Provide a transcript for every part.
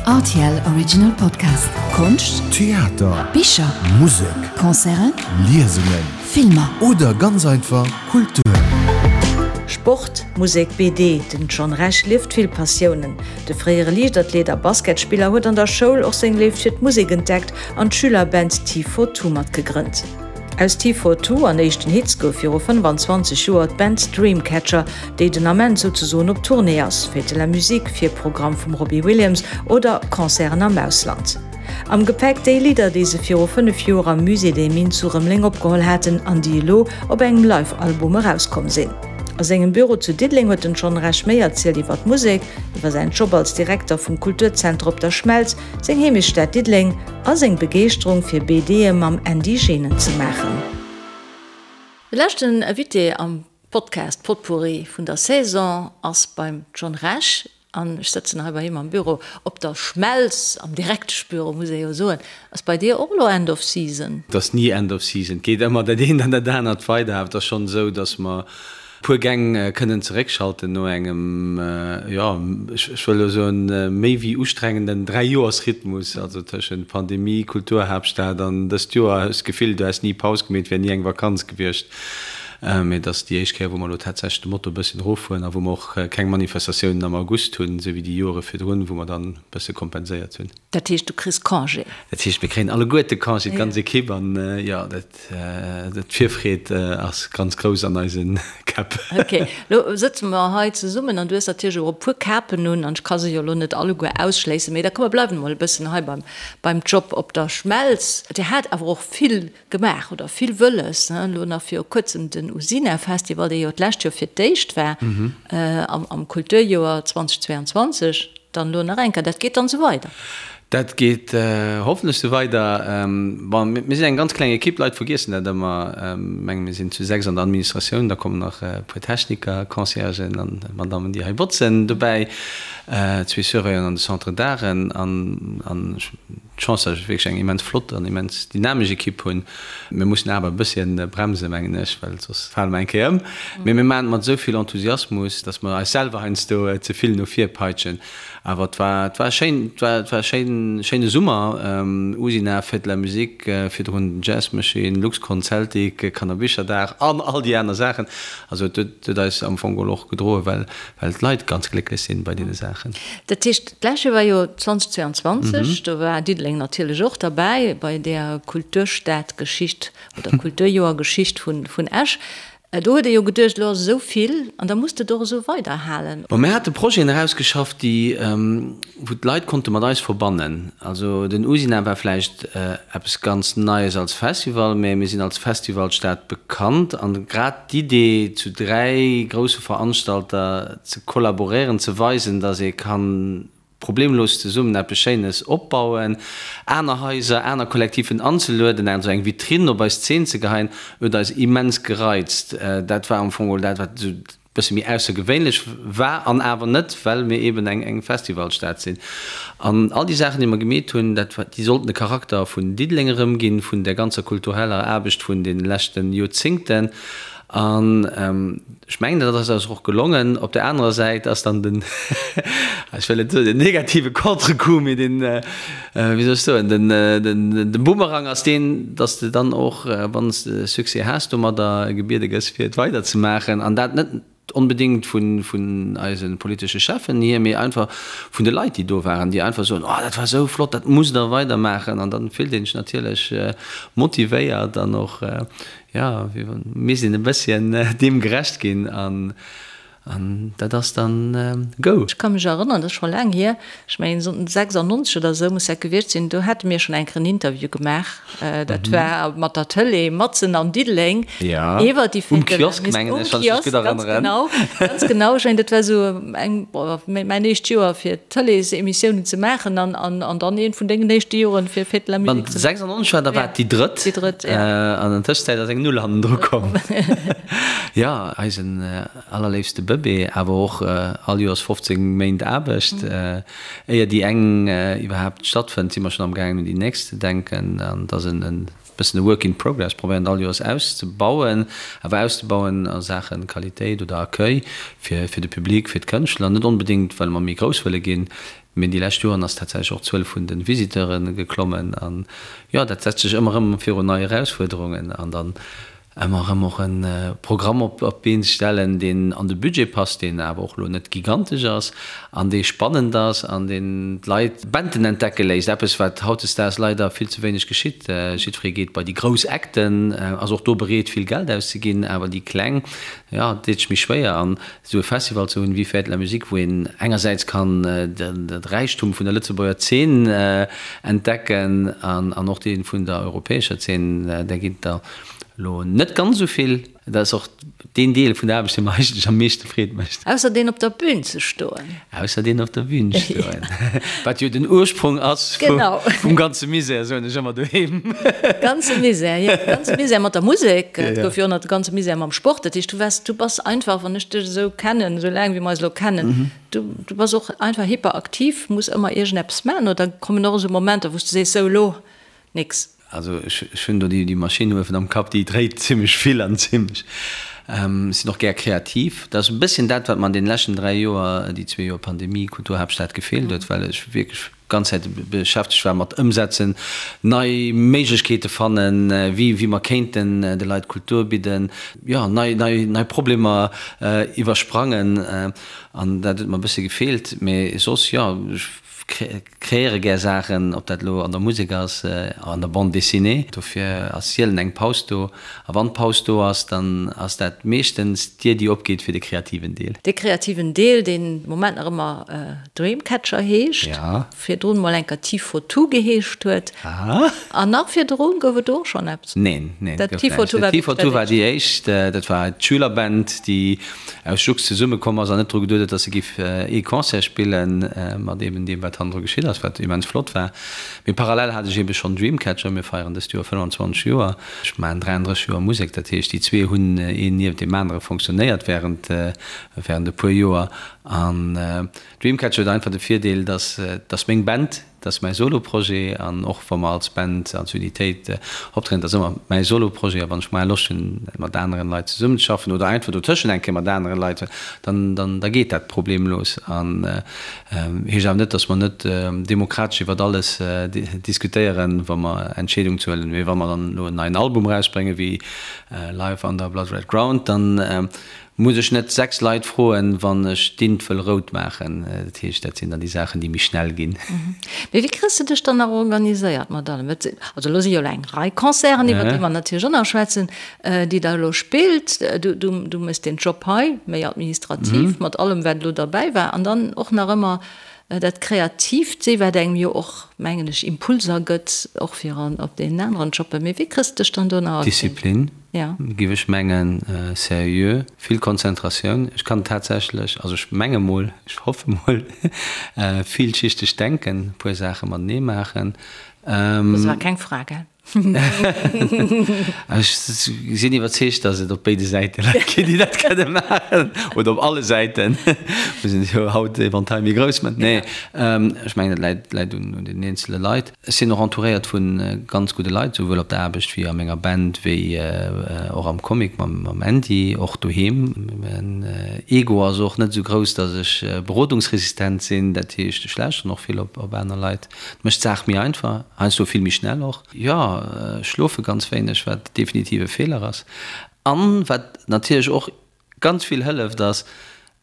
Rtl Original Podcast. Konscht, Theater, Bicher, Musek, Concerten, Liesungen Filmer. Oder ganz einfach Kultur. Sport, Musek, BD, den John Rech lieft vill Passiounen. De fréiere Liichtathlet a Basketspiller huet an der Schoul och seng Léift fir d'Musek entdeckt an d'Schülerband T42 matgegrënnt. Aus T42 an éischten Hits gouf viru 25 Joer d'Band Dreamcatcher, déi den Ament souzesoen op Tournée ass, Fête de la Musique, Virprogramm vum Robbie Williams oder Concerten am Ausland. Am Gepäck déi Lidder, déi se viru 5 Joer am Musée des Mines zu Rëmeleng opgeholl haten an déi elo op engem Live-Album erauskomm sinn. A sengem Büro zu Diddeleng huet den John Rech méi erzielt iwwer d'Musek, iwwer säin Job als Direkter vum Kulturzenter op der Schmelz, seng Heemechtsstad Diddeleng a seng Begeeschterung fir BDe mam Andy Genen ze maachen. De leschten Invité am Podcast Potpourri vun der Saison ass beim John Rech an ech sëtzen hei bei him am Büro op der Schmelz, am Direkteschbüro muss ee jo soen. Ass bei dir och elo End of Season? Et ass ni End of Season, et geet ëmmer dat eent an dat anert weider. Awer et ass schonn esou, datt mer puer Gäng kënnen zeréckschalten no engem, jo, ech wëll elo soen, méi wéi ustrengenden Dräijoersrhythmus, also tëschent Pandemie, Kulturhaaptstad an dëst Joer. Ech hu d'Gefill, du häss ni Paus gemeet, et wär ni eng Vakanz gewiescht. Mee et ass déi éischt Kéier, wou mer elo tatsächlech de Moto e bësschen eroffueren a wou mer och keng Manifestatiounen am August hunn, esou wéi déi Joere virdrun, wou mer dann e bësse kompenséiert hunn. Dat heescht, du kriss Congé? Dat heescht, mir kréien alleguerte Congé, d'ganz Ekipp. An jo, dat. D'Virfreed ass ganz grouss an eise Käpp. Ok, lo sëtze mer hei zesummen an du hues natierlech och e puer Kapen un an ech ka se jo elo net alleguer ausschléissen, mee da komm mer bleiwen emol e bëssen hei beim, beim Job op der Schmelz. Dir hat awer och vill gemaach oder vill wëlles, ne? Elo nach viru kuerzem den Usina Festival, dee jo d'lescht Joer fir d'éischt war am, am Kulturjoer 2022. Dann elo nach eng Kéier, dat geet dann esou weider? Dat geet hoffentlech esou weider. Bon, mir sinn eng ganz kleng Ekipp, d'Leit vergiessen dat ëmmer. Ech menge mir sinn zu 6 an der Administratioun, da kommen nach e puer Techniker, Conciergen an Madammen, déi hei botzen dobäi, zwee Surveillanten an de Centre d'Arten an ech hunn d'Chance, datt ech wierklech eng immens flott an immens dynamesch Ekipp hunn. Mir mussen awer e bësschen bremsen, mengen ech, well soss fale mer eng Kéier ëm. Mee mir maachen et mat esou vill Enthusiasmus, datt mer eis selwer heiansdo ze vill no vir peitschen. Awer et war, et war schéin, et war, et war schéin, schéine Summer. Usina, Fête de la Musique, virdrun den Jazz Machine, Luxcon, Celtic, Kannerbicherdag an all déi aner Saachen. Also et huet, huet eis am Fong geholl och gedroen, well, well d'Leit ganz glécklech sinn bei deene Saachen. Dat heescht, d'lescht Joer war jo 2022, do war Diddeleng natierlech och derbäi bei där Kulturstadgeschicht oder Kulturjoergeschicht vun, vun Esch. Do huet ee jo geduecht, elo ass esou vill an da muss de et och esou weiderhalen. Bon, mir hate Projeten erausgeschafft, déi, wou d'Leit konnte mat eis verbannen. Also den Usina war vläicht eppes ganz Neies als Festival, mä mir sinn als Festivalstad bekannt an grad d'Idee, zu 3 grousse Veranstalter ze kollaboréieren, ze weisen, datt ee kann problemlos zesummen eppes Schéines opbauen, aner Haiser, aner Kollektiven anzelueden, also eng Vitrinn op eis Zeen ze geheien, huet eis immens gereizt. Dat war am Fong geholl dat, wat esou e bësse méi aussergewéinlech war an awer net, well mir eeben eng Festivalstad sinn. An all déi Saachen, déi mer gemeet hunn, dat war, déi sollten de Charakter vun Diddeleng erëmginn, vun där ganzer kultureller Aarbecht vun de leschte Joerzéngten. An ech mengen, dat ass eis och gelongen. Op där anerer Säit ass dann den, ech wëll net soen den negative Contrecoup, mee den, wéi soll ech soen, den, den Bumerang ass deen, dass de dann och, wann s de Succès has domadder, gebiede gëss, fir et weiderzemaachen. An dat net onbedéngt vun, vun eise politesche Cheffen hier, mee einfach vun de Leit, déi do waren, déi einfach soen, Oh, dat war esou flott, dat musst Der weidermaachen. An dann fillt een sech natierlech motivéiert an och, Jo, mir sinn e bësschen deem gerecht ginn an dat ass dann go. Ech ka mech erënneren, dat ass scho laang hier, ech mengen 96 oder esou muss dat gewiescht sinn, do hate mir schonn eng Kéier en Interview gemaach, dat war mat der Tëlee matzen an Diddeleng iwwer déi Fête de la Musique. Um Kiosk, ganz genau, ganz genau. Ech mengen dat war esou eng, mäin éischt Joer fir Tëleesemissiounen ze maachen an dann eent vun dengen éischte Joren fir Fête de la Musique ze maachen. 96 war, da war et déi drëtt. Déi drëtt, ja. An an Tëschenzäit ass eng Null hannendru komm. Jo, eisen allerléifste Bëbee, awer och all Joers 15 Méint Aarbecht. Éier déi eng iwwerhaapt stattfënnt, si mer schonn amgaangen un déi nächst ze denken. An et ass en bëssen e Work in progress, probéieren et all Joers auszebauen, awer auszebauen a Saache Qualitéit oder Accueil fir de Public, fir d'Kënschtler. Net onbedéngt, well mer méi grouss wëlle ginn. Mee déi lescht Joren ass tatsächlech och d'Zuel vun de Visiteure geklommen. An jo, dat setzt sech ëmmer erëm virun nei Erausfuerderungen. An dann ëmmer erëm och e Programm op d'Been ze stellen, deen an de Budget passt, deen awer och elo net gigantesch ass an dee spannend ass an deen d'Leit Banden entdecke léisst, eppes wat hautdesdaags leider vill ze wéineg geschitt. Jiddweree geet bei déi grouss Acten, ass och do bereet vill Geld auszeginn, awer déi kleng, jo, deet sech méi schwéier. An esou e Festival ze hunn wéi Fête de la Musique, wou een engersäits kann de Räichtum vun der Lëtzebuerger Zeen entdecken an och dee vun der europäescher Zeen, där ginn et der Lo net ganz esou vill. Dat ass och deen Deel vun der Aarbecht, dee mer eigentlech am meeschte Freed mécht. Ausser deen op der Bühn ze stoen. Ausser deen op der Bühn stoen. Wat jo den Ursprong ass vum ganze Misär, soen ech ëmmer doheem. Ganze Misär, jo. Ganze Misär mat der Musek. Et gouf jo och nach de ganze Misär mam Sport. Dat heescht, du waars, du bass einfach, wann ech dech esou kennen, esou laang wéi mer eis elo kennen, du, du bass och einfach hyperaktiv, muss ëmmer iergendeppes maachen. Oder kommen och esou Momenter, wou s du sees, sou elo nix? Also ech hunn do déi Maschinn uewen am Kapp, déi dréit zimmlech vill an zimmlech. Ech sinn och gär kreativ. Dat ass e bësschen dat, wat mer an deene leschten 3 Joer, déi zwee Joer Pandemie, Kulturhaaptstad gefeelt huet, well ech wierklech ganz Zäit beschäftegt war mat Ëmsetzen, nei Méiglechkeete fannen, wéi wéi mer kéinten de Leit Kultur bidden, jo, nei nei nei Problemer iwwersprangen. An dat huet mer e bësse gefeelt. Mee soss, jo, ech Kreéiere gär Saachen, ob dat elo an der Musek ass, an der Bande dessinée. Dofir ass sielen eng Paus do. A wann d'Paus do ass, dann ass dat meeschtens d'Dier, déi opgeet fir de kreativen Deel. Dee kreativen Deel, deen de Moment nach ëmmer Dreamcatcher heescht, virdrun mol enker T-For-Two geheescht huet. An nach virdrun gouf et do och schonn eppes? Neen, neen, et gouf näischt. T-For-Two war déi éischt. Dat war d'Schülerband, déi aus Jux zesumme komm ass an net dru geduet huet, dass se giff ee Concert spillen, mat eben deem wat hannendru geschitt ass, wat immens flott war. Mee parallel hat ech eben schonn Dreamcatcher, mir feieren dëst Joer 25 Joer, ech maachen 33 Joer Musek, dat heescht déi zwee hunn een niewent deem anere fonctionnéiert während während e puer Joer. An Dreamcatcher huet einfach de Virdeel, dass dass meng Band, Dat ass mäi Solo-Projet an och wa mer als Band, als Unitéit optrieden, dat ass ëmmer mäi Solo-Projet a wann ech mol Loscht hunn mat aneren Leit zesummen ze schaffen oder einfach dotëschent eng Kéier mat aneren Leit, dann, dann, da geet dat problemlos an heescht awer net, datt mer net demokratesch iwwert alles diskutéieren, wa mer Entscheedungen ze huelen. Mee wa mer dann elo en neien Album erausbréngen, wéi Live Under Blood Red Ground, dann Muss ech net 6 Leit froen, wann ech d'Int wëll rout maachen? Dat heescht, dat sinn dann déi Saachen, déi méi schnell ginn. Mee wéi kriss de dech dann nach organiséiert mat allem? Et sinn, also elo si jo elo eng Rei Concerten, iwwer déi mer natierlech och nach schwätzen, déi der elo spillt. Du, du, du méchs deen Job hei, méi administrativ, mat allem, wat elo derbäi war, an dann och nach ëmmer dat Kreatiivt si, wat engem jo och, mengen ech, Impulser gëtt, och fir an op deenen aneren Jobben. Mee wéi kriss de dech dann do nach Disziplin. Giff ech mengen, seriö, vill Konzentratioun. Ech kann tatsächlech, also ech menge mol, ech hoffe mol, vielschichteg denken, e puer Saache matenee maachen. Dat war keng Fra, gell? Ech sinn iwwerzeegt, datt et op béide Säite Leit ginn, déi dat kënne maachen, oder op alle Säiten. Mir sinn jo haut Eventail méi grouss, mä nee, ech mengen, et läit, läit un den eenzele Leit. Ech sinn och entouréiert vu ganz gudde Leit, souwuel op der Aarbecht wéi a menger Band, wéi och am Comic mam Andy, och doheem. Mäin Ego ass och net esou grouss, datt ech berodungsresistent sinn. Dat heescht, ech lauschteren och vill op aner Leit. Dat mécht d'Saach méi einfach, heiansdo vill méi schnell och. Jo, ech schlofe ganz wéineg, wat definitiv e Feeler ass. An wat natierlech och Ganz vill hëlleft ass,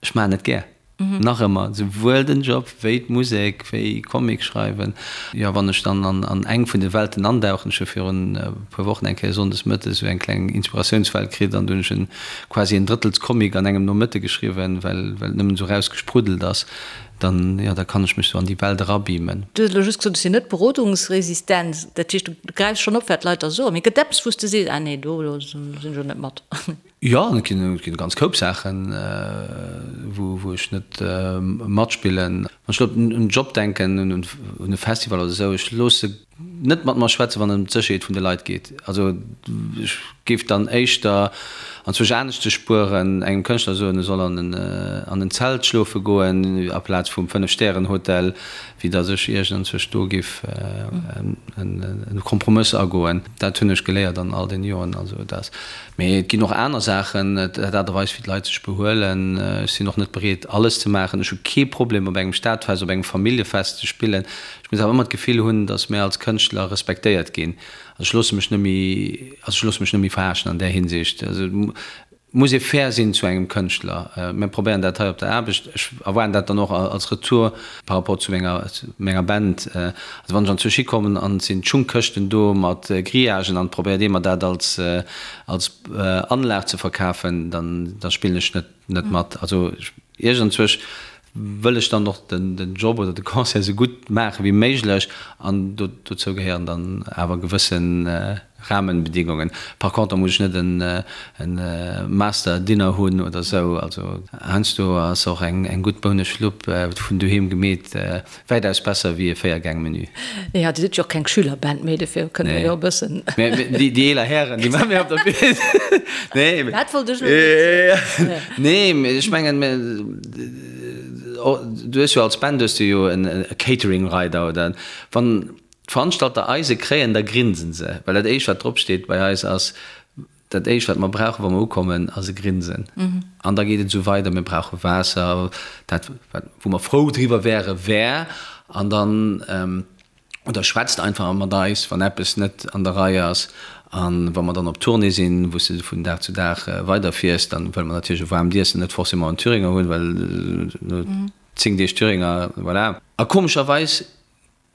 ech maachen et gär. Nach ëmmer, souwuel den Job wéi d'Musek, wéi Comic schreiwen. Jo, wann ech dann an eng vun de Welten andauchen, ech hu virun e puer Wochen eng Kéier sonndes mëttes esou eng kleng Inspiratiounswelt kritt an du hunn ech en quasi en Drëttels Comic an engem Nomëtte geschriwwen, well well et nëmmen esou rausgespruddelt ass, dann, jo, da kann ech mech esou an déi Welt erabeamen. Du hues elo just gesot, ech sinn net berodungsresistent. Dat heescht, du gräifs schonn op, wat d'Leit der soen. Mee gëtt eppes, wou s de sees, ah nee, do sinn ech elo net mat? Jo, et ginn e ganz Koup Saachen, wou ech net matspillen. Wann ech elo un den Job denken, un e Festival oder esou, ech loosse net mat mer schwätzen, wann et ëm d'Sécherheet vun de Leit geet. Also ech. Géif dann éischter anzwousch anescht ze spueren, engem Kënschtler soen, e soll an en an en Zelt schlofe goen aplaz vum Fënnef-Stären-Hotel, wéi datt ech iergendanzwousch do géif e Kompromëss agoen. Dat hunn ech geléiert an all den Joren. Also et ass, mee et ginn och aner Saachen, d'Aart a Weis wéi d'Leit sech behuelen. Ech sinn och net bereet alles ze maachen. Ech hu kee Problem op engem Stadfest, op engem Familljefest ze spillen. Ech muss awer ëmmer d'Gefill hunn, datt mär als Kënschtler respektéiert ginn. Also ech loosse mech net méi, also ech loosse mech net méi verarschen an där Hinsicht. Also et muss ee fair sinn zu engem Kënschtler. Mir probéieren dat hei op der Aarbecht. Ech erwaarden dat dann och als Retour par rapport zu menger, menger Band. Also wann ech anzwousch hikommen an et sinn Schungkëschten do mat Grillagen an et probéiert ee mer dat als, als Anlag ze verkafen, dann, da spillen ech net, net mat. Also iergendzwousch wëll ech dann och den Job oder de Concert esou gutt maache wéi méiglech an dozou gehéieren dann awer gewësse Rahmenbedingungen. Par contre muss ech net en Master Dinner hunn oder esou. Also heiansdo ass och eng gutt Bouneschlupp vun doheem gemeet wäitaus besser wéi e Véiergäng-Menü. Jo, Dir sidd jo och keng Schülerband méi, dofir kënne mir jo e bëssen. Déi eeler Hären, déi mat mir op der Bühn. Nee. Dat wollt ech elo net soen. Nee, mee ech mengen, du hues jo als Band hues du jo e Catering-Rider oder wann d'Veranstalter eis e kréien, da grinsen se, well dat éischt wat drop steet bei eis ass, Dat éischt, wat mer brauchen, wa mer ukommen, ass e Grinsen. An da geet et esou weider, Mir brauche Waasser, dat, wat, wou mer frou driwwer wäre wär. An dann, oder schwätzt einfach mat eis, wann eppes net an der Rei ass. A wa mer dann op Tournée sinn, wou s de vun Dag zu Dag weiderfiers, dann wëlle mer natierlech e waarmt Iessen, net forcément en Thüringer hunn, well no 10 Deeg Thüringer, voilà. A komescherweis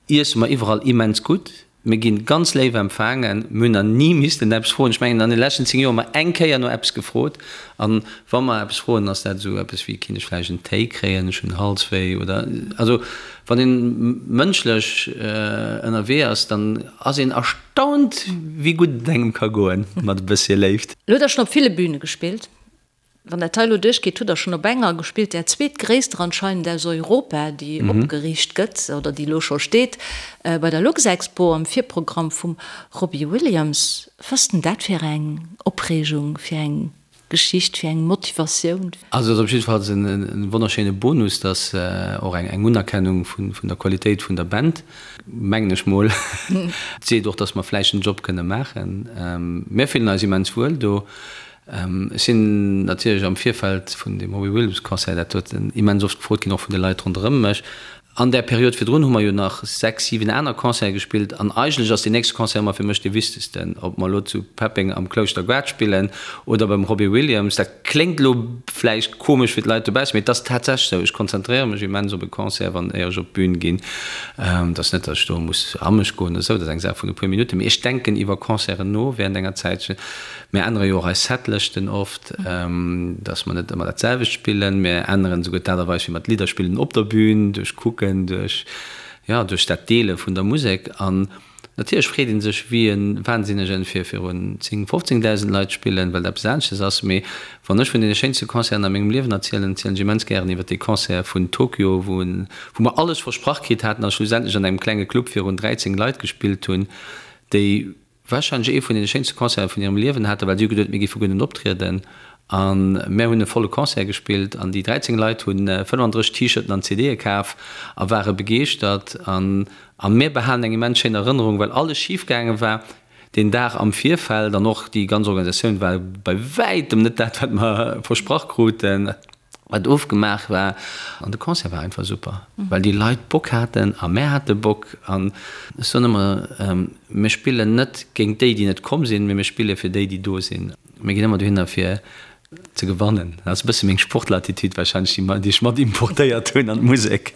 Iesse mer iwwerall immens gutt. Mir ginn ganz léif empfaangen. Mir hunn nach ni missten eppes froen. Ech mengen, an de leschten 10 Joer hu mer eng Kéier no eppes gefrot. An wa mer eppes froen, ass dat esou eppes wéi, Kinnt ech vläicht en Téi kréien, ech hunn Halswéi oder. Also wann een mënschlech ënnerwee ass, dann ass een erstaunt, wéi gutt et engem ka goen mat e bëssche Léift. Elo hutt Der schonn op ville Büne gespillt. Wann dat hei elo duerchgeet, hutt Der schonn op enger gespillt, där zweetgréisster anscheinend aus Europa, déi opgeriicht gëtt oder déi elo scho steet, bei der Luxexpo am Virprogramm vum Robbie Williams. Was ass denn dat fir eng Opreegung, fir eng Geschicht, fir eng Motivatioun? Also et ass op jiddefalls e wonnerschéine Bonus, dass och eng Unerkennung vun der Qualitéit vun der Band, mengen ech mol. Et seet och, dass mer vläicht den Job kënne maachen. Mir fillen eis immens wuel do. Ech sinn natierlech am Virfeld vun deem Robbie Williams Concert, dat huet immens oft gefrot ginn, och vun de Leit ronderëm mech. An där Period virdrun hu mer jo nach 6, 7 aner Concerte gespillt an eigentlech ass deen nächste Concert ëmmer fir mech dee wichtegsten, ob mer elo zu Peppeng am Klouschter Gaart spillen oder beim Robbie Williams. Dat kléngt elo vläicht komesch fir d'Leit dobaussen, mee et ass tatsächlech esou. Ech konzentréiere mech immens op e Concert, wann éier ech op d'Bün ginn. Et ass net, datt ech do muss a mech goen oder esou, dat ass eng Saach vun e puer Minutten, mee ech denken iwwer Concerten no während enger Zäitchen. Mir ännere jo och eis Setlëschten oft, dass mer net ëmmer dat selwecht spillen. Mir änneren esouguer d'Aart a Weis, wéi mer d'Lidder spillen op der Bühn, duerch Kucken, duerch, jo, duerch dat Deele vun der Musek. An natierlech freet ee sech wéi e Wahnsinnegen, fir virun 10, 15.000 Leit spillen, well dat eppes aneschtes ass. Mee wann ech vun deene schéinste Concerten a mengem Liewen erzielen, erzielen ech immens gären iwwer dee Concert vun Tokio, wou wou mer alles versprach kritt haten a schlussendlech an engem klenge Club virun 13 Leit gespillt hunn, déi Warscheinlech ee vun deene schéinste Concerte vun hirem Liewen haten, well si hu geduet, mir géife guer net optrieden. A mär hunn e volle Concert gespillt an déi 13 Leit hu 35 T-Shirten an CDe kaf a ware begeeschtert. An a mär behalen eng immens schéin Erënnerung, well alles schif gaange war deen Dag am Virfeld an och déi ganz Organisatioun war bei wäitem net dat, wat mer versprach kruten. Wat ofgemaach war. An de Concert war einfach super, well déi Leit Bock haten a mär hate Bock. An ech soen ëmmer, mir spillen net géint déi, déi net komm sinn, mee mir spille fir déi, déi do sinn. Mir ginn ëmmer dohinner fir ze gewannen. Dat ass e bësse meng Sportler-Attitude warscheinlech, déi ech mat importéiert hunn an d'Musek.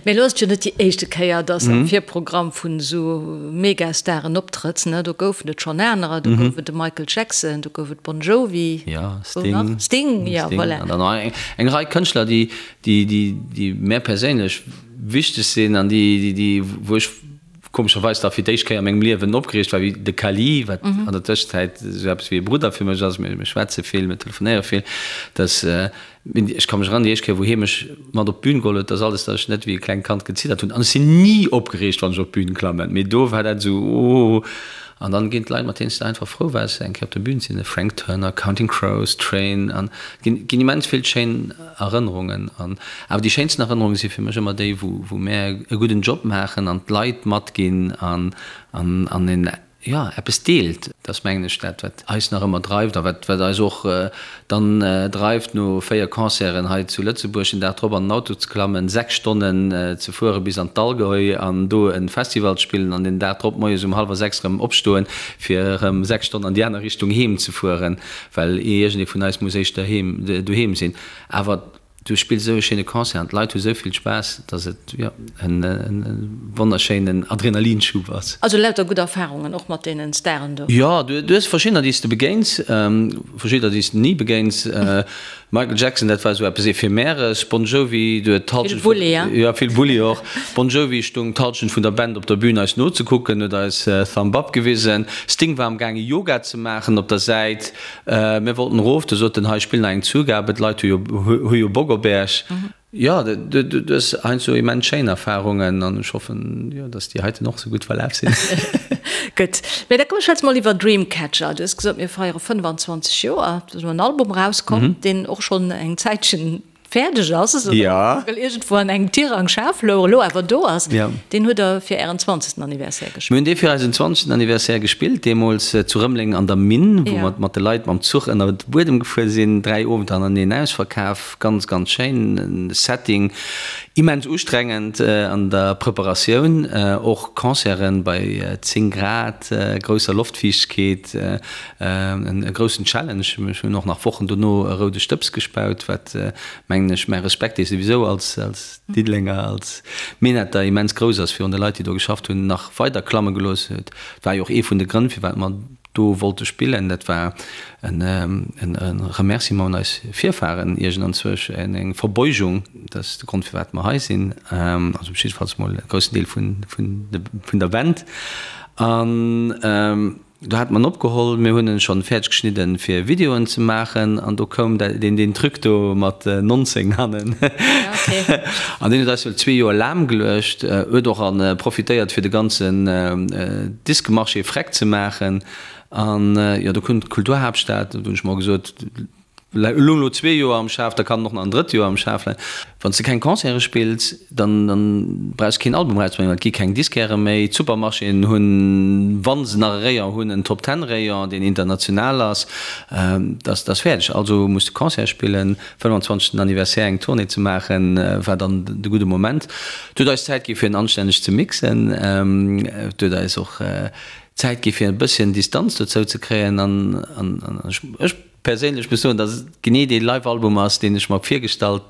Mee elo ass et jo net déi éischte Kéier, dass am Virprogramm vun esou Megastaren optrëtts, ne? Do goufen et schonn anerer, do gouf et de Michael Jackson, do gouf et Bon Jovi, Jo, Sting. Sting, jo, voilà. An dann nach eng, eng Rei Kënschtler, déi, déi, déi, déi mär perséinlech wichteg sinn an déi, déi, déi, wou ech komescherweis da fir d'éischt Kéier a mengem Liewen opgereegt war, wéi de Kali, wat an der Tëschenzäit esou eppes wéi e Brudder fir mech ass. Mir, mir schwätze vill, mir telefonéiere vill, dass, Ech ka mech erënneren, déi éischt Kéier, wou hie mech mat op d'Bün geholl huet, dass alles, dass ech net wéi e klengt Kand geziddert hunn. An ech sinn ni opgereegt, wann ech op d'Bün klammen, mee do war dat esou, oh. An dann ginn d'Leit, mat deenen s de einfach frou waars, eng Kéier op der Bühn ze sinn, Frank Turner, Counting Crows, Train, an et ginn immens vill schéin Erënnerungen. An awer déi schéinsten Erënnerunge si fir mech ëmmer déi, wou wou mär e gudden Job maachen an d'Leit matginn an an an een jo, eppes deelt. Dat ass, mengen ech, dat, wat eis nach ëmmer dreift a wat, wat eis och dann dreift, no 4 Concerten hei zu Lëtzebuerg den Dag drop an den Auto ze klammen, 6 Stonnen ze fuere bis an d'Allgäu an do e Festival ze spillen an den Dag drop moies um hallwer 6 erëm opstoen, fir erëm 6 Stonnen an déi aner Richtung heem ze fueren, well iergendee vun eis muss éischter heem, doheem sinn. Awer Du spills esou e schéine Concert an d'Leit hu sou vill Spaass, dass et, jo, en wonnerschéinen Adrenalinschub ass. Also lauter gutt Erfahrungen, och mat deenen Staren do? Jo, du hues verschiddener, déi s de begéins, verschiddener, déi s de ni begéins. Michael Jackson, dat war esou eppes Ephemeres. Bon Jovi, du huet d'Halschent vun. Vill Bulli, jo. Vill Bulli och. Bon Jovi stung d'Halschent vun der Band op der Bühn eis nozekucken, huet eis Thumb Up gewisen. Sting war am gaange Yoga ze maachen op der Säit. Mir wollten erof, du sot en, hei spill nach eng Zugabe, d'Leit hu jo hu jo Bock op Äech. Jo, du hues heiansdo immens schéin Erfarungen an ech hoffen, jo, datt déi heiten och sou gutt verlaf sinn. Gutt, mä da komm schwätze mol iwwer Dreamcatcher. Du hues gesot, mir feiere 25 Joer, do ass elo en Album erauskomm, deen och schonn eng Zäitchen fäerdeg ass, esou ja. well iergendwou an engem Tirang Schaf louch, elo awer do ass. Ja. Deen hutt Der fir Ären zwanzegsten Anniversaire gespillt. Mir hunn dee fir eisen zwanzegsten Anniversaire gespillt, deemools zu Rëmeleng an der Minn, wou mer mat de Leit mam Zuch ënner de Buedem gefuer sinn. 3 Owenter hannerteneen ausverkaf, ganz, ganz schéin Setting, immens ustrengend an der Preparatioun, och Concerten bei 10 Grad, grousser Loftfiichtkeet, E groussen Challenge. Ech hunn och nach Wochen dono e roude Stëbs gespaut, wat, mengen ech, mäi Respekt, dee souwisou als Diddelenger, als Minetter immens grouss ass virun de Leit, déi do geschafft hunn, nach weider klamme gelooss huet. Et war jo och ee vun de Grënn, firwat mer do wollte spillen. Dat war e Remerciement un eis Virfahren iergendanzwousch, eng Verbeugung. Dat ass de Grond, firwat mer hei sinn, also jiddefalls mol e groussen Deel vun der Band. An. Do hat mer en opgeholl, mir hunn en schonn fäerdeg geschnidden fir Videoen ze maachen an do koum deen deen Truc do mat 19 hannen an deen huet eis wuel zwee Joer lahm geluecht, huet och an profitéiert fir de ganzen Disquemarché freck ze maachen an jo do koum d'Kulturhaaptstad, do hunn ech mer gesot, Elo elo zwee Joer am Schaf, da kann en och nach en drëtt Joer am Schaf leien. Wann s de keng Concerte spills, dann dann brauchs de keen Album erauszebréngen, well et gi keng Disquairë méi. D'Supermarchéen hunn, wa se nach e Rayon hunn, en Top Ten Rayon, deen international ass. Dat ass fäerdeg. Also muss de Concerte spillen. 25. Anniversaire eng Tournée ze maachen, war dann de gudde Moment. Et huet eis Zäit gi fir en anstänneg ze mixen. Et huet eis och Zäit gi fir e bësschen Distanz dozou ze kréien an an ech Perséinlech muss soen, dass et genee dee Live-Album ass, deen ech mer virgestallt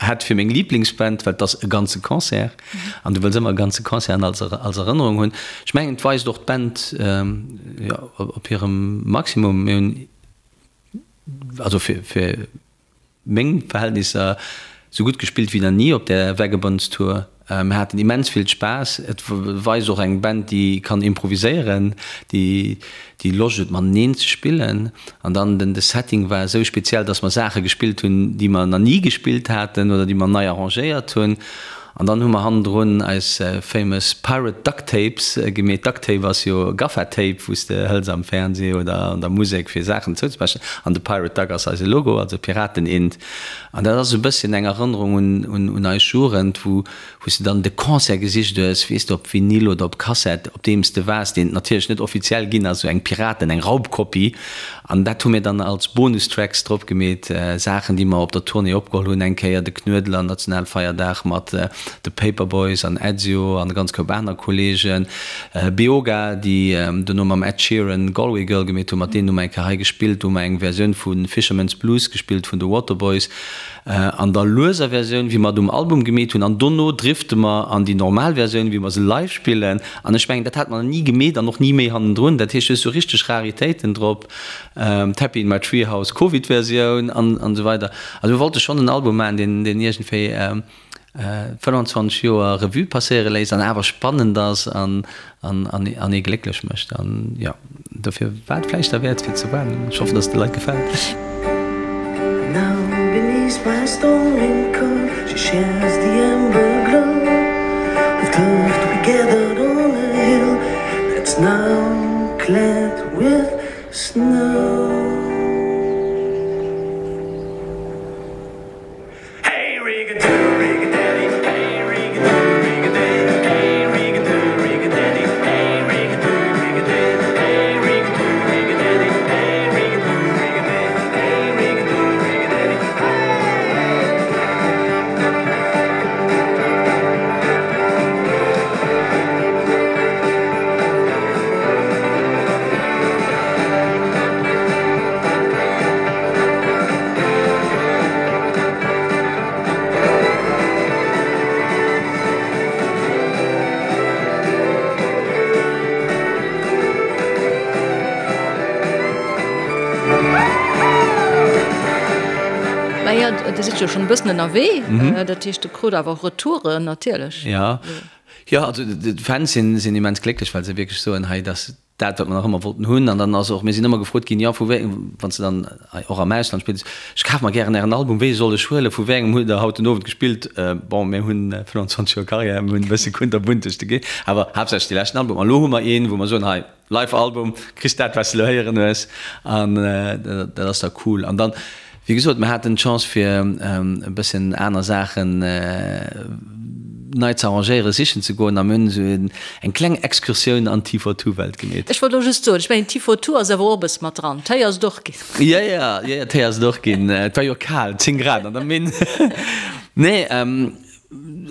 hätt fir meng Liblingsband, well et ass e ganze Concert an du wëlls ëmmer e ganze Concert als als Erënnerung hunn. Ech mengen, et weist och d'Band jo op hirem Maximum. Mir hunn also fir fir meng Verhältnisser sou gutt gespillt wéi nach ni op där Vagabonds Tour. Mir haten immens vill Spaass. Et weist och eng Band déi kann improviséieren, déi déi Loscht huet mateneen ze spillen. An dann den de Setting war esou speziell, dass mer Saache gespillt hunn, déi mer nach ni gespillt haten oder déi mer nei arrangéiert hunn. An dann hu mer hannendrun eis famous Pirate Duct Tapes gemeet. Duct Tape ass jo Gaffa Tape, wou s de hëls am Fernseh oder an der Musek fir Saachen zouzepechen. An de Pirate Duck ass eise Logo, also Piraten-Int. An dat ass e bësschen eng Erënnerung un eis Jugend, wou wou s de dann de Concert gesicht hues, weess de, op Vinyl oder op Kassett, op deem s de waars, deen et natierlech net offiziell ginn ass, esou eng Piraten, eng Raubkopie. An dat hu mir dann als Bonustracks drop gemeet, Saachen, déi mer op der Tournée opgeholl hunn, eng Kéier de Knuedler, Nationalfeierdag mat de Paperboys an Ezio an e ganz Koup aner Kolleegen, Beoga, déi dono mam Ed Sheeran Galway Girl gemeet hunn, mat deenen hu mer eng Kéier hei gespillt, do hu mer eng Versioun vu Fisherman's Blues gespillt vun de Waterboys. An der lueser Versioun, wéi mer et um Album gemeet hunn, an dono drifte mer an déi normal Versioun, wéi mer se live spillen. An ech mengen, dat hat mer nach ni gemeet an och ni méi hannendrun. Dat heescht, du hues sou richteg Raritéiten drop, d'Happy in my Treehouse Covid-Versioun an esou weider. Also mir wollte schonn en Album maachen, deen, deen iergendwéi 25 Joer Revue passéiere léisst an awer spannend ass an an ee glécklech mécht. An jo, dofir war et vläicht derwäert fir ze waarden. Ech hoffen, dass et de Leit gefält. Chocolate with snow. Maja, Dir sidd jo schonn e bëssen ënnerwee, dat heescht, Der krut awer och Retouren natierlech. Jo, jo, also d'Fans sinn immens glécklech, well se wierklech soen, hei, dat dat, wat mer nach ëmmer wollten hunn. An dann ass och, mir sinn ëmmer gefrot ginn, jo, vu wéi, wann s de dann och am Ausland spills, ech kaf mer gären ären Album, wéi soll ech huelen, vu wéi engem hutt Der haut den Owend gespillt? Bon, mir hunn 25 Joer Karriär, mir hunn e bësse kunterbunt duerch de Ge, awer haaptsächlech dee leschten Album. An elo hu mer een, wou mer soen, hei, Live-Album, kriss dat, wat s de elo héieren hues. An dat ass da cool. An dann, Wéi gesot, mir haten d'Chance fir e bësschen aner Saachen nei ze arrangéieren, sichen ze goen a mir hunn esou eng kleng Excursioun an d'T-for-Two-Welt gemeet. Ech wollt och just soen, ech mengen T-for-Two ass awer och e bësse mat dran. D'Téi ass et och ginn. Jo, jo, jo, jo, Téi ass et och ginn. Et war jo kal, 10 Grad an der Minn. Nee,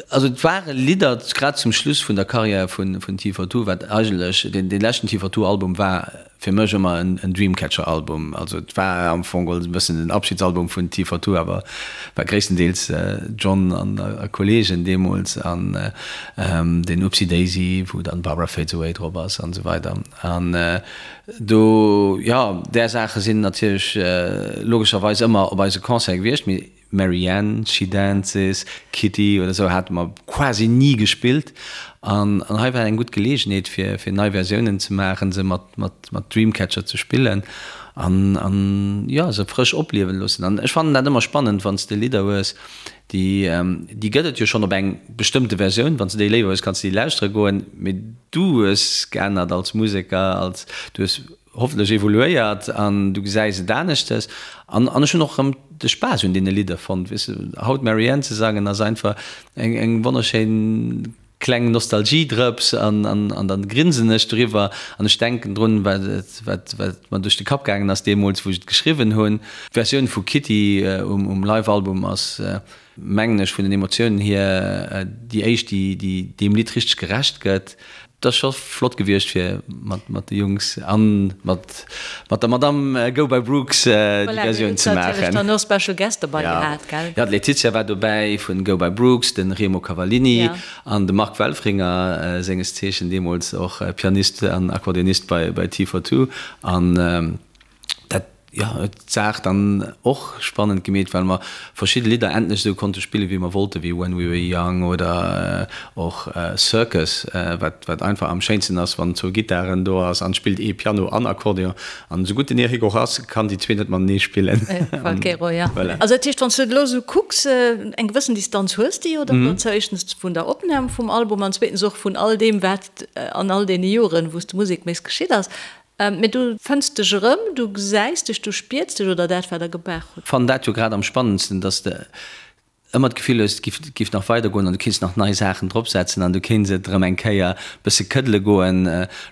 also et ware Lidder, grad zum Schluss vun der Karriär vun T-for-Two, wat eigentlech deen leschten T-for-Two-Album war, Fir mech ëmmer en Dreamcatcher Album. Also et war am Fong geholl e bëssen den Abschiedsalbum vun T42, awer war gréisstendeels John an a Kollegen deemools an den Oopsie Daisy, wou dann Barbara Fades Away drop ass an esou weider. An do, jo, där Saache sinn natierlech logescherweis ëmmer op eise Concerte gewiescht, mee Marianne, She Dances, Kitty oder sou hate mer quasi ni gespillt an hei war eng gutt Geleegenheet fir fir nei Versiounen ze maachen, se mat mat mat Dreamcatcher ze spillen an an jo se frësch opliewen loossen. An ech fannen dat ëmmer spannend wann s de Lidder hues déi déi gëtt et jo schonn op eng bestëmmte Versioun, wann s de déi léiwer hues kanns de déi lauschtere goen, mee du hues geännert als Museker, als du hues hoffentlech evoluéiert an du gesäis et aneschtes an an ech hunn och erëm de Spaass un deene Lidder fonnt. Weess de, haut Marianne ze sangen ass einfach eng eng wonnerschéin kleng Nostalgiedrëps an an an dann grinsen ech driwwer an ech denken drun, wat et wat wat mer duerch de Kapp gaangen ass deemools wou ech et geschriwwen hunn. D'Versioun vu Kitty um um Live-Album ass mengen ech, vun den Emotiounen hier déi éischt, déi déi deem Lidd richteg gerecht gëtt. Et ass scho flott gewiescht fir mat mat de Jungs an mat mat der Madame Go by Brooks déi Voilà, Versioun hutt ze natierlech maachen. dann och Special Guest dobei Ja, gehat, gell? ja, d'Laetitia war dobäi vun Go by Brooks, de Remo Cavallini Ja. an de Marc Welfringer, senges Zeechen deemools och Pianist an Akkordeonist bei bei T42 an Dat, jo, huet d'Saach dann och spannend gemeet, well mer verschidde Lidder endlech esou konnte spillen, wéi mer wollten, wéi When We Were Young oder och Circus, wat, wat einfach am schéinsten ass, wann zwou Gittaren do ass an et spillt ee Piano an Akkordeon. An esou gutt den Eric och ass, kann déi zwee net matenee spillen. Falchero, ja. Voilà. Also dat heescht, wann s du et elo esou kucks, eng gewëssen Distanz hues de jo dann dozou, éischtens vun der Opnam vum Album an zweetens och vun all deem, wat an all deene Joren, wou s de Musek méchs, geschitt ass. Mee du fënns dech erëm, du gesäis dech, du spiers dech oder dat, wat der gemaach hutt. Fannen dat jo grad am spannendsten, dass de ëmmer d'Gefill hues, et giff, giff nach weider goen an du kéints nach nei Saachen drop setzen an du kéints et erëm eng Kéier bësse këddele goen.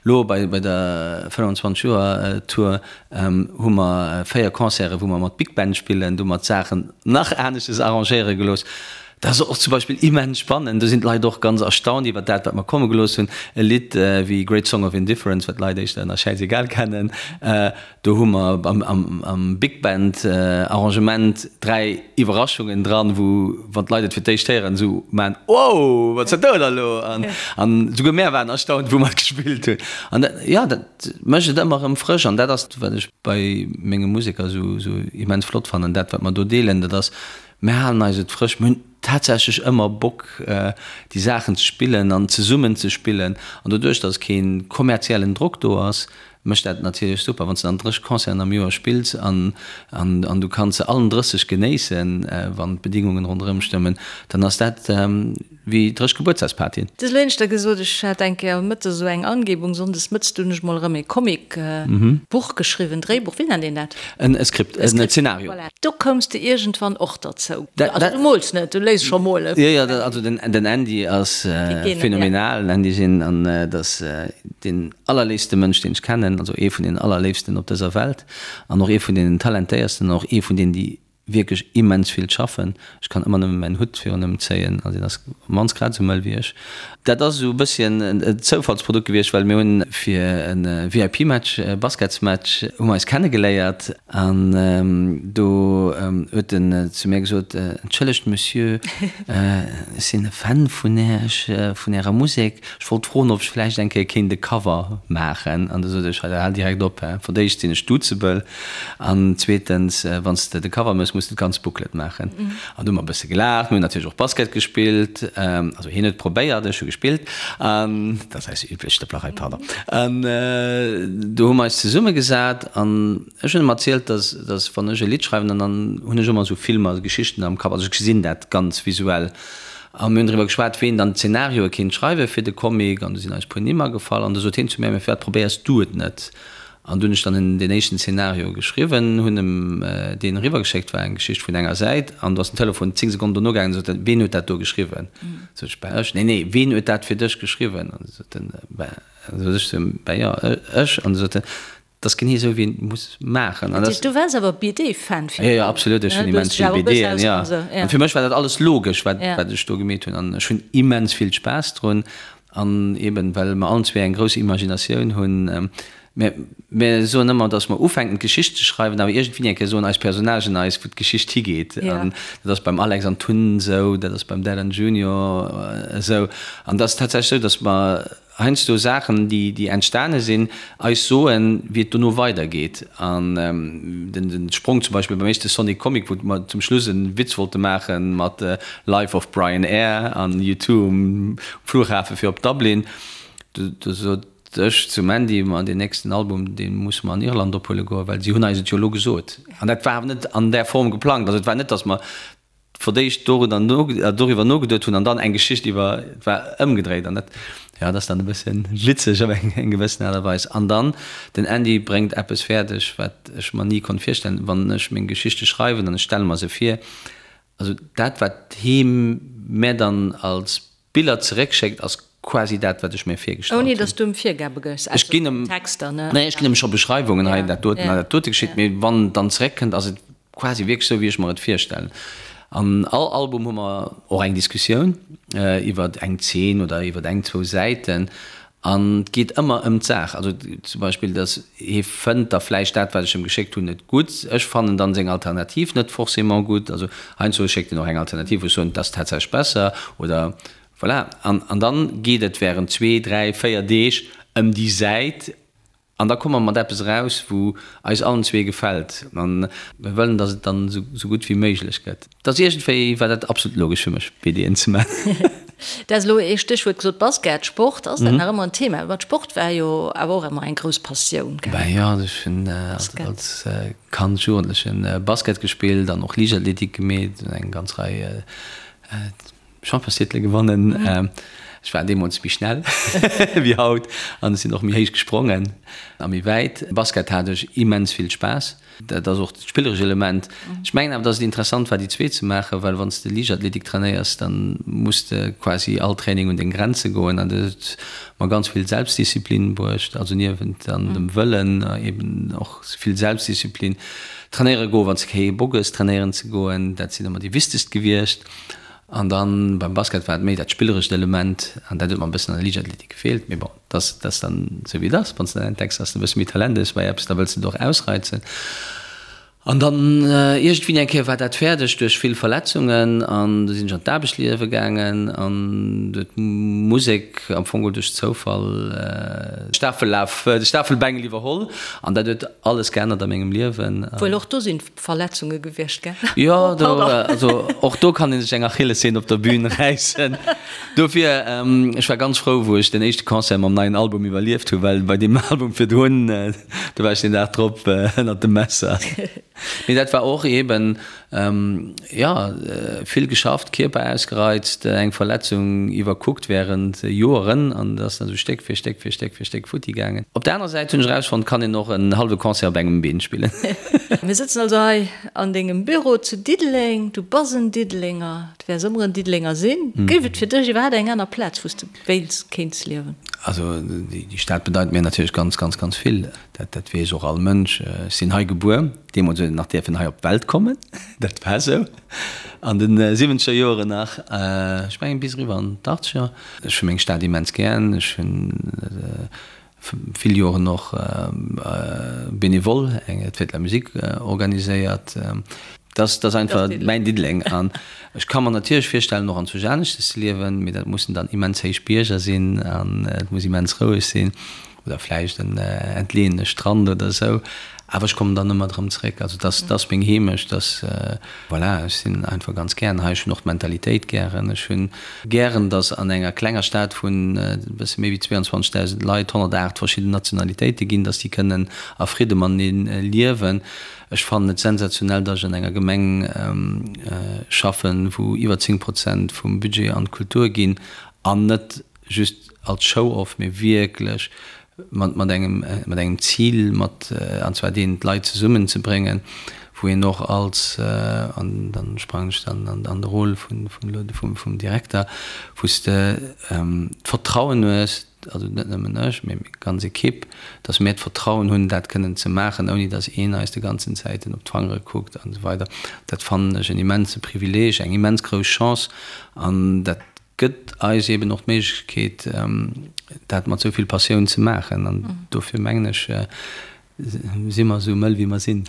Lo bei, bei der 25 Joer Tour hu mer 4 Concerten, wou mer mat Big Band spillen, do hu mer d'Saachen nach aneschtes arrangéiere gelooss. Dat ass och zum Beispill immens spannend. Do sinn d'Leit och ganz erstaunt iwwer dat, wat mer komme gelooss hunn. E Lidd wéi Great Song of Indifference, wat d'Leit éischter ënner Schäiss-egal kennen, do hu mer am Big Band Arrangement 3 Iwwerraschungen dran, wou, wann d'Leit et fir d'éischt héieren, esou maachen, Wow, wat ass dat do da elo? An esouguer mär waren erstaunt, wou mer et gespillt hunn. An dat, jo, dat mécht et ëmmer erëm frësch. An dat ass, wat ech bei menge Museker esou immens flott fannen, dat, wat mer do deelen, dat ass, Mir halen eis et frësch. Mir hunn tatsächlech ëmmer Bock, déi Saachen ze spillen an zesummen ze spillen. An doduerch, datt kee kommerziellen Drock do ass. Mécht dat natierlech super, wann s de dann 30 Concerten am Joer spills an an du kanns se allen 30 genéissen, wann d'Bedingungen ronderëm stëmmen, dann ass dat wéi 30 Gebuertsdagspartyen. Du hues elo éineschter gesot, ech hat eng Kéier mëttes esou eng Angebung, sonndes mëttes, du hunn ech mol erëm ee Comic Buch geschriwwen, Dréibuch, wéi nennt een dat? En Skript, en Zeenario. Voilà, do koums de iergendwann och derzou. Also du mools net, du léiss scho molen. Jo, jo, also den Andy ass phänomenal, den Andy Gin, an dat ass deen allerléifste Mënsch, deen ech kennen, also ee vun den allerléifsten op dëser Welt an och ee vun deenen talentéiersten an och ee vun deenen, déi wierklech immens vill schaffen. Ech kann ëmmer nëmme mäin Hutt virun ëm zéien, also deen ass op d'mannst grad esou mëll wéi ech. Dat ass esou e bësschen en Zoufallsprodukt gewiescht, well mir hunn fir e VIP-Match, e Basketsmatch, hu mer eis kennegeléiert an do huet en zu mir gesot, Entschëllegt Monsieur, ech sinn e Fan vun Iech, vun Ärer Musek. Ech wollt froen, ob ech vläicht eng Kéier kéint e Cover maachen. An du sot ech, Hal direkt op, hä? Fir d'éischt sinn ech duzebel an zweetens, wann s de de Cover méchs, muss de d'ganz Booklet maachen. An du hu mer e bësse gelaacht. Mir hunn natierlech och Basket gespillt. Also hien huet probéiert, ech hu gespillt. An dat ass eis üblech Stëpplerei, pardon. An du hu mer eis zesummegesat an ech hunn em erzielt, dass, dass wann ech e Lidd schreiwen, dann hunn ech ëmmer esou Filmer, Geschichten am Kapp. Also ech gesinn dat ganz visuell. A mir hunn driwwer geschwat, ween dann d'Zenarioe kéint schreiwe fir de Comic, an du sinn eis puer Nimm agefall, an du sot hien zu mir, Mä firwat probéiers du et net? An du hunn ech dann deen éischten Zenario geschriwwen, hunn em deen eriwwergeschéckt, war eng Geschicht vun enger Säit, an du ass den Telefon 10 Sekonnen dono gaangen, an sot en, Ween huet dat do geschriwwen? Sot ech, Bah ech. Nee, nee, ween huet dat fir dech geschriwwen? An du sot en, Bah, sot ech zu him, Bah jo, ech. An du sot en, Dat ass genee esou wéi een et muss maachen. An du waars awer BD-Fan virdrun? Jo, jo, absolut, ech hunn immens vill BDen, jo. An fir mech war dat alles logesch, wat ech do gemeet hunn. An ech hunn immens vill Spaass drun. An eben, well mer allen zwee eng grouss Imaginatioun hunn. Mir, mir soen ëmmer, datt mer ufänken d'Geschicht ze schreiwen, awer iergendwéi eng Kéier soen eis Personnagen eis, wou d'Geschicht higeet. An dat ass beim Alex an Tun esou, dat ass beim Dylan Junior esou. An dat ass tatsächlech esou, datt mer heiansdo Saachen, déi entstane sinn, eis soen, wéi et dono weidergeet. An den Sprong zum Beispill beim éischte Sonic Comic, wou mer zum Schluss e Witz wollte maache mat Life of Brian Air an U2 um Flughafe fir op Dublin, do sot ech zum Andy, Ma deen nächsten Album, dee musse mer an Irland ophuele goen, well si hunn eis et jo elo gesot. An dat war awer net an där Form geplangt. Also et war net, datt mer fir d'éischt doriwwer nogeduet hunn an dann eng Geschicht iwwer, et war ëmgedréit an dat, jo, dat ass dann e bësse witzeg op eng gewëssen Aart a Weis. An dann, den Andy bréngt eppes fäerdeg, wat ech mer ni konnt virstellen, wann ech meng Geschichte schreiwen an ech stelle mer se vir, also dat wat hee mär dann als Biller zeréckschéckt ass quasi dat wat ech mir virgestallt hunn. Ouni dass du em Virgabe gëss, ausser den Texter, ne? Nee, ech ginn em scho Beschreiwungen, hei dat doten, hei dat dote geschitt, mee wann et dann zeréckkënnt ass et quasi wierklech esou wéi ech mer et virstellen. An all Album hu mer och eng Diskussioun iwwert eng Zeen oder iwwert eng, zwou Säiten An et geet ëmmer ëm d'Saach. Also zum Beispill, datt hie fënnt da vläicht dat, wat ech em geschéckt hunn, net gutt. Ech fannen dann seng Alternativ net forcément gutt. Also heiansdo schéckt en och eng Alternativ, wou ech soen, dat ass tatsächlech besser oder voilà. An, an dann geet et während zwee, dräi, véier Deeg ëm déi Säit an da komme mer mat eppes eraus, wou eis allen zwee gefält. A mir wëllen, datt et dann esou gutt wéi méiglech gëtt. Et ass iergendwéi war dat absolut logesch fir mech, BDen ze maachen. Du has elo ee Stéchwuert gesot, Basket, Sport. Ass dat nach ëmmer en Thema? Well Sport war jo awer och ëmmer eng grouss Passioun, gell? Ben jo, also ech hunn als Kand, Jugendlechen Basket gespillt an och Liichtathletik gemeet, eng ganz Rei Championstitele gewonnen. Ech war deemools méi schnell wéi haut an ech sinn och méi héich gesprongen a méi wäit. Basket hat ech immens vill Spaass. Dat ass och dat spilleresch Element. Ech mengen awer, datt et interessant war, déi zwee ze maachen, well wann s de Liichtathletik trainéiers, da muss de quasi all Training un deng Grenze goen an dat huet mer ganz vill Selbstdisziplin bruecht, also niewent dann dem Wëllen eben och vill Selbstdisziplin. Trainéiere goen, wann s de kee Bock hues trainéieren ze goen, dat sinn ëmmer déi wichtegst gewiescht. An dann beim Basket war et méi dat spillerescht Element an dat huet mer e bëssen an der Liichtathletik gefeelt. Mee bon, dat ass, dat ass dann esou wéi et ass. Wann s de dann entdecks, dass de e bësse méi Talent hues bei eppes, da wëlls de et och ausreizen. An dann iergendwéi eng Kéier war dat fäerdeg duerch vill Verletzungen an du sinn ech an d'Aarbechtsliewe gaangen an du huet d'Musek am Fong geholl duerch Zoufall de Stafellaf, de Stafelbengel iwwerholl an dat huet alles geännert a mengem Liewen. Wuel och do sinn Verletzunge gewiescht, gell? Jo, do, also och do kann ee sech eng Achillessehn op der Bühn räissen. Dofir, ech war ganz frou wou ech den éischte Concert mam neien Album iwwerlieft hu well bei deem Album virdrun, Do war ech den Dag drop ënnert dem Messer. Mee dat war och eben, jo, vill geschafft, Kierper ausgereizt, eng Verletzung iwwerkuckt während Joeren an et ass dann esou Stéck fir Stéck fir Stéck fir Stéck futti gaangen. Op der anerer Säit hunn ech erausfonnt, kann een och en hallwe Concert op engem Been spillen. Mir sëtzen also hei an dengem Büro zu Diddeleng. Du bass en Diddelenger, du wäers ëmmer en Diddelenger sinn. Géif et fir dech iwwerhaapt eng aner Plaz, wou s de wéils, kéints liewen? Also déi Stad bedeit mir natierlech ganz, ganz, ganz vill. Dat, dat weess och all Mënsch. Ech sinn hei gebuer. Deemools huet een nach dierfen hei op d'Welt kommen. Dat war esou an de siwwenzeger Joren nach. Ech mengen bis eriwwer an d'Achtzeger. Ech hu meng Stad immens gären. Ech hunn vill Joren och bénévole eng Fête de la Musique organiséiert. Dat ass einfach mäin Diddeleng. An ech ka mer natierlech virstellen, och anzwousch aneschtes ze liewen, mee dat mussen dann immens héich Bierger sinn an et muss immens roueg sinn oder vläicht en entleeëne Strand oder esou. Awer ech kommen dann ëmmer erëm zeréck. Also dat ass meng Heemecht, dat, voilà, ech sinn einfach ganz gären hei. Ech hunn och d'Mentalitéit gären. Ech hunn gären, datt an enger klenger Stad vun e bësse méi wéi 22.000 Leit 108 verschidden Nationalitéite ginn, datt déi kënnen a Fridde matenee liewen. Ech fannen et sensationell, datt ech an enger Gemeng schaffen, wou iwwer 10 Prozent vum Budget an d'Kultur ginn, an net just als Show-off, mee wierklech mat engem, mat engem Zil, mat, an zwar deen, d'Leit zesummenzebréngen, wou een och als, an dann sprangen ech dann an de Rôle vun, vum, vum Direkter, wou s de d'Vertrauen hues, also net nëmmen ech, mee meng ganz Ekipp, datt mir d'Vertrauen hunn, dat kënnen ze maachen, ouni datt een eis de ganzen Zäiten op d'Fangere kuckt an esou weider. Dat fannen ech en immense Privileeg, eng immens grouss Chance an dat gëtt eis eeben och d'Méiglechkeet, dat mat esou vill Passioun ze maachen. An dofir mengen ech, Si mer esou mëll wéi mer sinn.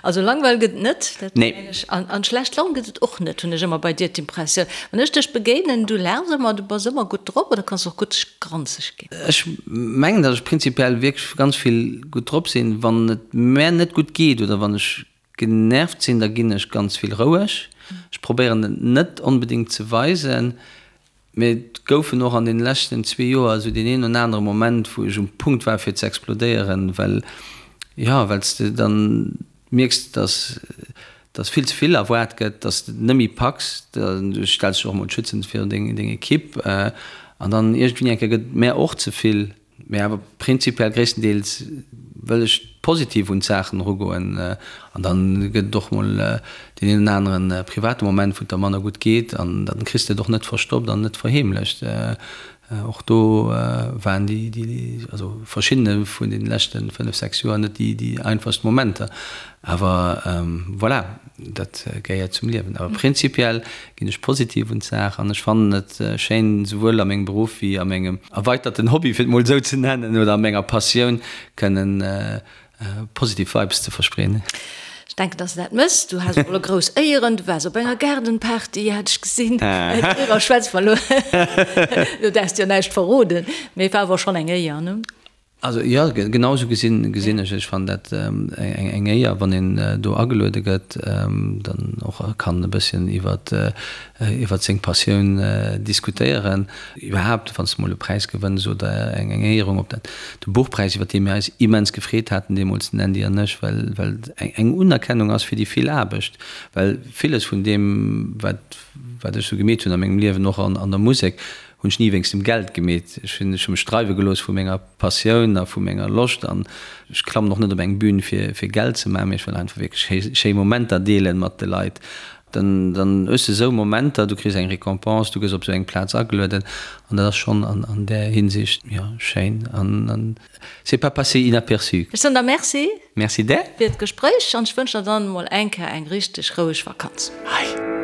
Also Langweil gëtt et net, dat Nee. mengen ech. An, an schlecht Laun gëtt et och net, hunn ech ëmmer bei dir d'Impressioun. Wann ech dech begéinen, du laachs ëmmer, du bass ëmmer gutt drop oder kanns och gutt granzeg ginn. Ech mengen, datt ech prinzipiell wierklech ganz vill gutt drop sinn. Wann et mär net gutt geet oder wann ech genervt sinn, da ginn ech ganz vill roueg. Ech probéieren et net onbedéngt ze weisen. Mee et goufen och an deene leschten zwee Joer esou deen een oder anere Moment, wou ech um Punkt war fir ze explodéieren, well, jo, well s de dann mierks, dass, dass vill ze vill erwaart gëtt, dass de et net méi packs, du stells dech och emol schützend virun deng, deng Ekipp an dann iergendwéi eng Kéier gëtt et mär och ze vill. Mee awer prinzipiell gréisstendeels wëll ech positiv un d'Saachen erugoen. An dann gëtt et och mol deen een oder aneren private Moment, wou et der manner gutt geet. An dann kriss de et och net verstoppt an net verheemlecht. Och do waren déi, déi, also verschiddene vun deene leschte 5, 6 Joer net déi, déi einfachst Momenter. Awer voilà, dat gehéiert zum Liewen. Awer prinzipiell ginn ech positiv un d'Saach an ech fannen et schéin, souwuel a mengem Beruff wéi a mengem erweiterten Hobby, fir et mol esou ze nennen, oder a menger Passioun kënnen positiv Vibes ze verspreeden. Ech denken, dass de dat mëss. Du has och elo grouss Éieren, du waars op enger Gaardenparty, hat ech gesinn. Doriwwer schwätze mer elo, do däerfs de jo näischt verroden, mee et war awer schonn eng Éier, ne? Also jo, genau esou gesinn gesinn ech et. Ech fannen dat eng Éier, wann een do ageluede gëtt, dann och kann e bësschen iwwert iwwert seng Passioun diskutéieren. Iwwerhaapt, wann s de mol e Präis gewënns oder eng eng Éierung, ob dat de Buchpräis, iwwert dee mir eis immens gefreet haten deemools, den Andy an ech, well well et eng Unerkennung ass fir déi vill Aarbecht, well villes vun deem, wat wat ech esou gemeet hunn a mengem Liewen, och an an der Musek, Hunn ech ni wéinst dem Geld gemeet. Ech hunn ech hu mech dreiwe gelooss vu menger Passioun a vu menger Loscht an ech klammen och net op eng Bühn fir fir Geld ze maachen, mee ech wëll einfach wierklech schéi schéi Momenter deelen mat de Leit. Dann dann hues de esou Momenter, du kriss eng Récompense, du gëss op esou eng Plaz agelueden an dat ass schonn an an där Hinsicht, jo, schéin an an c'est pas passé inaperçu. Ech soen der Merci. Merci där. Fir d'Gespréich an ech wënschen der dann emol eng Kéier eng richteg roueg Vakanz. Hei.